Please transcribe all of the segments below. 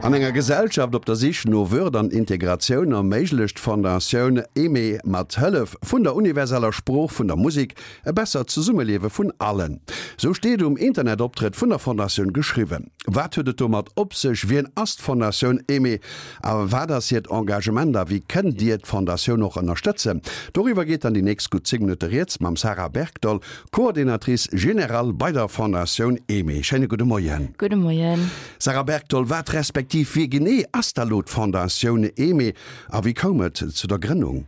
An enger Gesellschaft op der Sich no Würd an Integratioun erméiglecht d'Fondatioun Aimée mat Hëllef vun der universeller Sprooch vun der Musek e bessert Zesummeliewe vun allen. Sou steet um Internetoptrëtt vun der Fondatioun geschriwwen. Wat huet et domat op sech? Wien ass d'Fondatioun Aimée a wat ass hiert Engagement a wéi kënnt Dir d'Fondatioun och ënnerstëtzen? Doriwwer geet dann déi nächst gutt 10 Minutte rieds mam Sarah Bergdoll, Coordinatrice générale bei der Fondatioun Aimée. Schéine gudde Moien. Gudde Moien. Sarah Bergdoll, wat respektiv wie genee ass da lo d'Fondatioun Aimée a wéi koum et zu der Grënnung?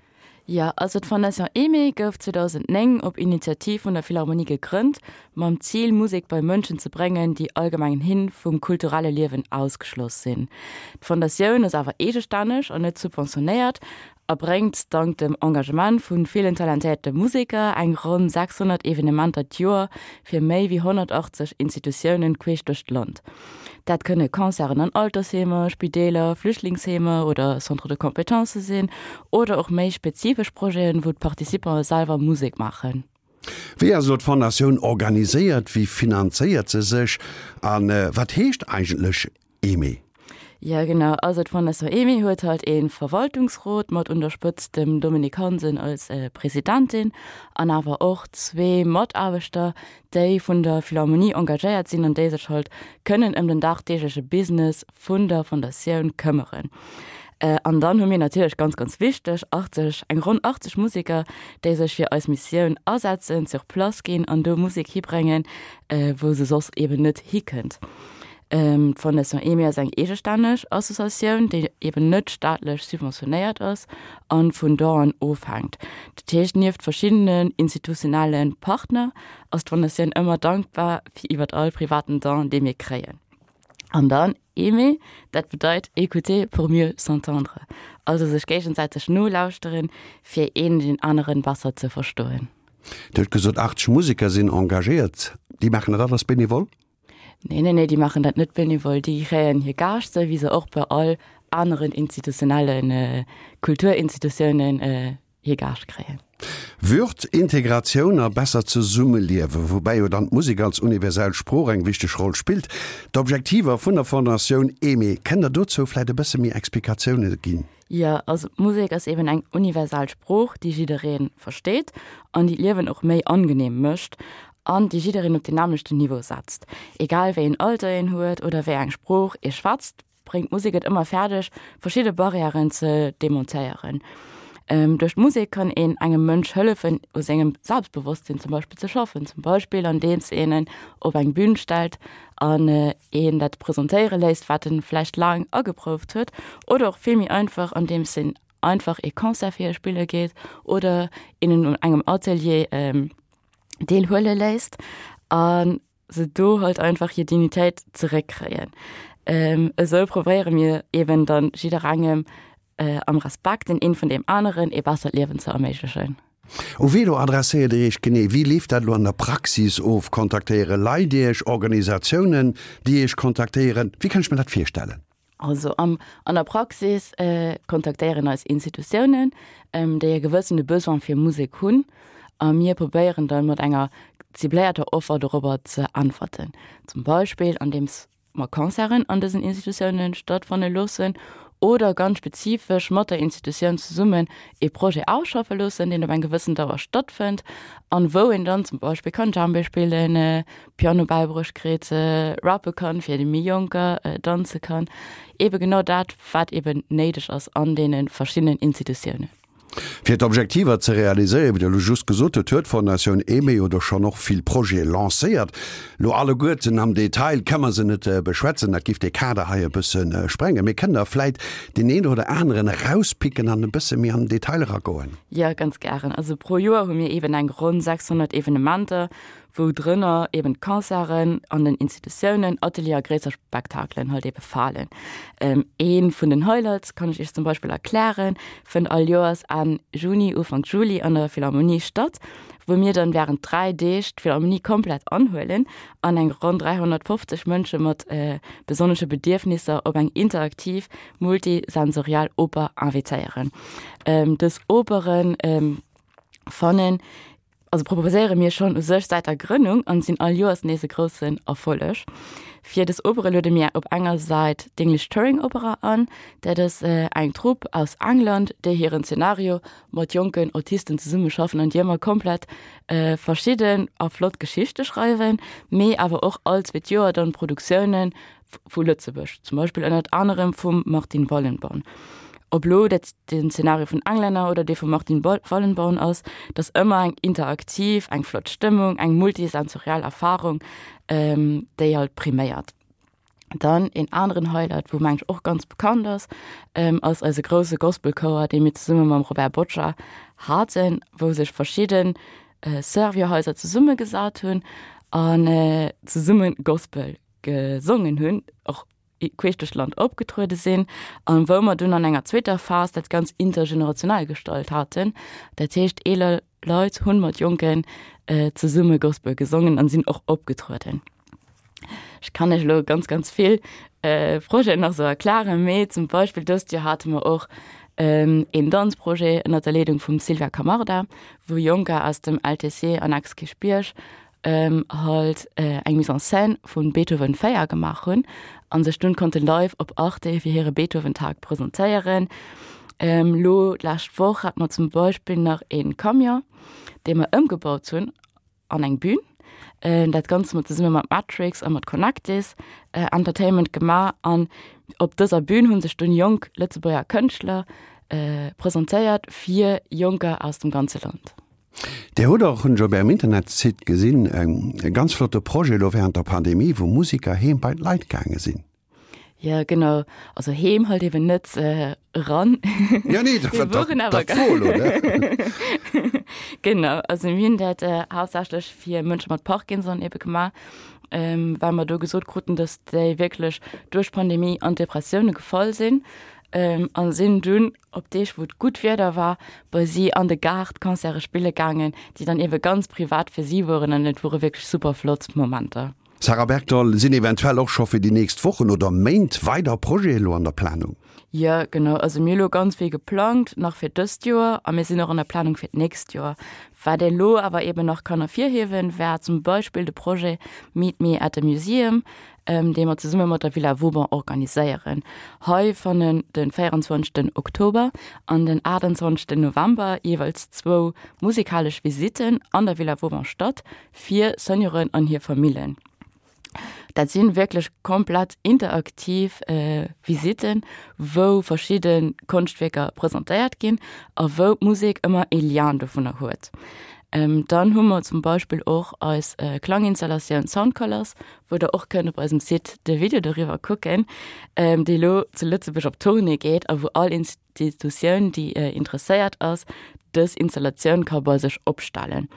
Jo, also d'Fondation Aimée gouf 2009 op Initiativ vun der Philharmonie gegrënnt, mam Zil Musek bei Mënschen ze bréngen, déi allgemenghin vum kulturelle Liewen ausgeschloss sinn. D'Fondatioun ass awer eegestänneg an net subventionéiert a bréngt dank dem Engagement vu villen talentéierte Museker eng ronn 600 Evenementer d'Joer fir méi wéi 180 Institutiounen queesch duerch d'Land. Dat kënne Concerten an Altersheemer, Spideeler, Flüchtlingsheemer oder Centres de compétences sinn oder och méi spezifesch Projeten, wou d'Participante selwer Musek maachen. Wéi ass elo d'Fondatioun organiséiert, wéi finanzéiert se sech a wat heescht eigentlech Aimée? Jo genau, also d'Fondation Aimée huet halt ee Verwaltungsrot mat un der Spëtzt dem Dominique Hansen als Presidentin an awer och zwee Mataarbechter, déi vun der Philharmonie engagéiert sinn an déi sech halt kënnen ëm den dagdeegleche Business vun der Fondatioun këmmeren. An dann hu mir natierlech, ganz, ganz wichteg, 80, eng ronn 80 Museker, déi sech fir eis Missioun asetzen, sur place ginn an do Musek hibréngen, wou se soss eben net hikënnt. D'Fondation Aimée ass eng eegestänneg Associatioun, déi eben net staatlech subventionéiert ass a vun Donen ofhänkt. Dat heescht, nieft verschiddenen institutionelle Partner ass d'Fondatioun ëmmer dankbar fir iwwert all privaten Don, dee mir kréien. An dann aimer, dat bedeit écouter pour mieux s'entendre, also sech géigesäiteg nolauschteren, fir een deen aneren besser ze verstoen. Dir hutt gesot, 80 Museker sinn engagéiert. Déi maachen dat alles benevol? Nee, nee, nee, déi maachen dat net benevol. Déi kréien hir Gage, sou wéi se och bei all aneren institutionellen Kulturinstitutiounen hir Gage kréien. Würd, Integratioun a bessert Zesummeliewen, woubäi jo dann d'Musek als universell Sprooch eng wichteg Roll spillt. D'Objektiver vun der Fondatioun Aimée, kënnt Der dozou vläit e bësse méi Explikatioune ginn? Jo, also d'Musek ass eben eng universal Sprooch, déi jidderee versteet an déi d'Liewen och méi angenehm mécht an déi jiddereen op den nämmlechten Niveau setzt. Egal wéi een Alter een huet oder wéi eng Sprooch ee schwätzt, bréngt d'Musek et ëmmer fäerdeg, verschidde Barrièren ze demontéieren. Duerch d'Musek kann een engem Mënsch hëllefen, u sengem Selbstbewosstsinn zum Beispill ze schaffen, zum Beispill andeems een en op eng Bün stellt an een dat presentéiere léisst, wat en vläicht laang ageprouft huet, oder och vill méi einfach, andeems een einfach ee Concert virspille geet oder een en un engem Atelier deelhuele léisst a se do halt einfach hir Dignitéit zeréckkréien. Esou probéiere mir eben dann jidderengem am Respekt den een vun deem aneren ee bessert Liewen ze erméiglechen. U wee elo adresséiert Dir Iech genee? Wéi leeft dat elo an der Praxis of? Kontaktéiere Leit Iech, Organisatiounen, déi Iech kontaktéieren? Wéi kann ech mir dat virstellen? Also am, an der Praxis kontaktéieren eis Institutiounen, déi e gewëssene Besoin fir Musek hunn, a mir probéieren dann mat enger cibléierter Offer dorobber ze äntwerten. Zum Beispill andeems mer Concerten an dësen Institutiounen stattfanne loossen oder ganz spezifesch mat der Institutioun zesummen ee Projet ausschaffe loossen, deen op eng gewëssen Dauer stattfënnt an wou een dann zum Beispill kann Djembé spillen, Piano bäibruecht kritt, rappe kann fir déi méi Jonker, danze kann, eebe genau dat wat eeben néideg ass an deene verschiddenen Institutiounen. Fir d'Objektiver ze realiséieren, wéi Der elo just gesot hutt, huet d'Fondatioun Aimée jo do schonn och vill Projete lancéiert. Elo alleguerten am Detail ka mer se net beschwätzen, dat giff dee Kader hei e bësse sprengen. Mee kënnt Der vläit deen een oder aneren erauspicken an e bësse méi an den Detail eragoen? Jo, ganz gären. Also pro Joer hu mir eeben eng ronn 600 Evenementer, wou drënner eben d'Concerten an den Institutiounen, Atelier a gréisser Spektakelen halt ebe falen. Ee vun den Highlights kann ech Iech zum Beispill erklären, fënnt all Joers Enn Juni, Ufank Juli an der Philharmonie statt, wou mir dann wärend 3 Deeg d'Philharmonie komplett anhuelen an eng ronn 350 Mënsche mat besonnesche Bedierfnisser op eng interaktiv, multisensoriell Oper invitéieren. Dës Operen fannen Also proposéiere mir schonn u sech säit der Grënnung an sinn all Joers nees e groussen Erfolleg. Fir dës Opere luede mir op enger Säit d'English Touring Opera an. Dat ass eng Trupp aus England, déi hiren Zenario mat jonken Autisten zesummeschaffen an déi ëmmer komplett verschidden a flott Geschichte schreiwen, mee awer och all zweet Joer dann Produktiounen vu Lëtzebuerg, zum Beispill ënnert anerem vum Martin Wallenborn. Ob lo dat den Zenario vun Englänner oder dee vum Martin Wallenborn ass, et ass ëmmer eng interaktiv, eng flott Stëmmung, eng multisensoriell Erfarung, déi halt priméiert. Dann een aneren Highlight, wou meng ech och ganz bekannt ass, ass eise grousse Gospelchouer, dee mir zesumme mam Robert Boccia haten, wou sech verschidde Servierhaiser zesummegesat hunn an zesumme Gospel gesongen hunn, och queesch duerch d'Land opgetruede sinn an wou mer dunn an enger zweeter Phas dat ganz intergenerationell gestalt haten. Dat heescht eeler Leit hunn mat Jonken zesumme Gospel gesongen an sinn och opgetrueden. Ech kann lech elo ganz ganz vill Projeten nach sou erklaren, mee zum Beispill dëst Joer hate mer och een Danzprojet ënnert der Leedung vum Sylvia Camarda, wou Jonker aus dem LTC an Ex-Kierchbierg halt eng Mise en scène vun Beethoven 4 gemaach hunn an sech dunn konnte live op Arte fir hire Beethoven-Tag presentéieren. Lo d'lescht Woch hat mer zum Beispill nach een Camion, dee mer ëmgebaut hunn an eng Bühn. Dat Ganzt hu mer zesumme mat Matrix a mat Connectis Entertainment gemaach an op dëser Bühn hu sech dunn jonk Lëtzebuerger Kënschtler presentéiert fir Jonker aus dem ganze Land. Dir hutt och, hunn ech op Ärem Internetsite gesinn, e ganz flotte Projet elo während der Pandemie, wou Musiker heem bei d'Leit gaange sinn. Jo, genau. Also heem halt eben net eran. Jo, nee, dat war dat wor elo, ne? Genau, also mir hunn dat haaptsächlech fir Mënsche mat Parkinson ebe gemaach, well mer do gesot kruten, datt déi wierklech duerch d'Pandemie an Depressioune gefall sinn a sinn dunn op Deeg wou et gutt Wieder war, bei si an de Gaart Concerte spille gaangen, déi dann ebe ganz privat fir si woren an et wore wierklech super flott Momenter. Sarah Bergdoll, Sinn eventuell och scho fir déi nächst Wochen oder Méint weider Projete elo an der Planung? Jo, genau. Also mir hu lo ganz vill geplangt nach fir dëst Joer a mir sinn och an der Planung fir d'nächst Joer. Wat ee lo awer eben nach kann ervirhiewen, war zum Beispill de Projet Meet Me at the Museum, dee mer zesumme mat der Villa Vauban organiséieren. Hei fannen de 24 Oktober an den 28 November jeeweils zwou musikalesch Visitten an der Villa Vauban statt fir Senioren an hir Famillen. Dat si wierklech komplett interaktiv Visitten, wou verschidde Konschtwierker presentéiert ginn a wou d'Musek ëmmer ee Lien dovunner huet. Dann hu mer zum Beispill och eis Klanginstallatioun Sound Colors, wou der och kënnt op eisem Site de Video doriwwer kucken, déi elo zu Lëtzebuerg op Tournée geet a wou all Institutioun, déi interesséiert ass, dës Installatioun ka bei sech opstellen.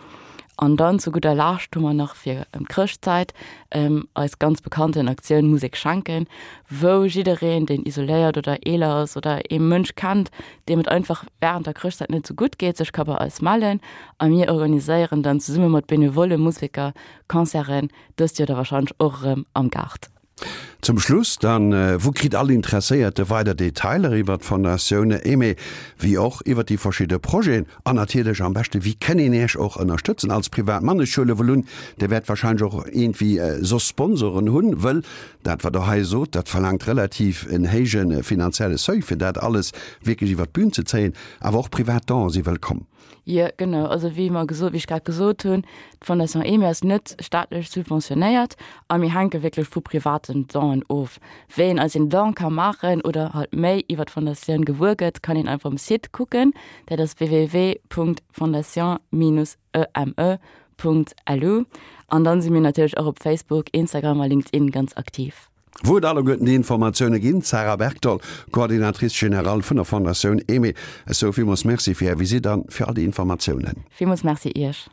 An dann zu gudder Lescht hu mer nach fir ëm d'Chrëschtzäit eis ganz bekannten Aktioun Musek schenken, wou jiddereen, deen isoléiert oder eeler ass oder ee Mënsch kennt, deem et einfach wärend der Chrëschtzäit net esou gutt geet, sech ka bei eis mellen a mir organiséieren dann zesumme mat benevolle Museker Concerten, Dëst Joer da wahrscheinlech och erëm am Gaart. Zum Schluss dann, Wou kritt all Interesséierte weider Detailer iwwert d'Fondatioun Aimée, wéi och iwwert déi verschidde Projeten? An natierlech am beschte, wéi kënn een Iech och ënnerstëtzen als Privatmann? Ech huele wuel un, Dir wäert wahrscheinlech och iergendwéi soss Sponsoren hunn, wëll dat wat Der hei sot, dat verlaangt relativ en héije finanzielle Seuil, fir dat alles wierklech iwwert d'Bün ze zéien. Awer och privat Donen si wëllkomm. Jo, genau. Also wéi mer gesot, wéi ech grad gesot hunn, d'Fondation Aimée ass net staatlech subventionéiert a mir hänke wierklech vu privaten Donen of. Wéi een eis een Don ka maachen oder halt méi iwwer d'Fondatioun gewuer gëtt, kann een einfach um Site kucken. Dat ass www.fondation-eme.lu. An dann si mir natierlech och op Facebook, Instagram a LinkedIn ganz aktiv. Wou et alleguerten déi Informatioune ginn. D'Sarah Bergdoll, Coordinatrice générale vun der Fondatioun Aimée. Ech soe villmools Merci fir Är Visitt an fir all déi Informatiounen. Villmools Merci Iech.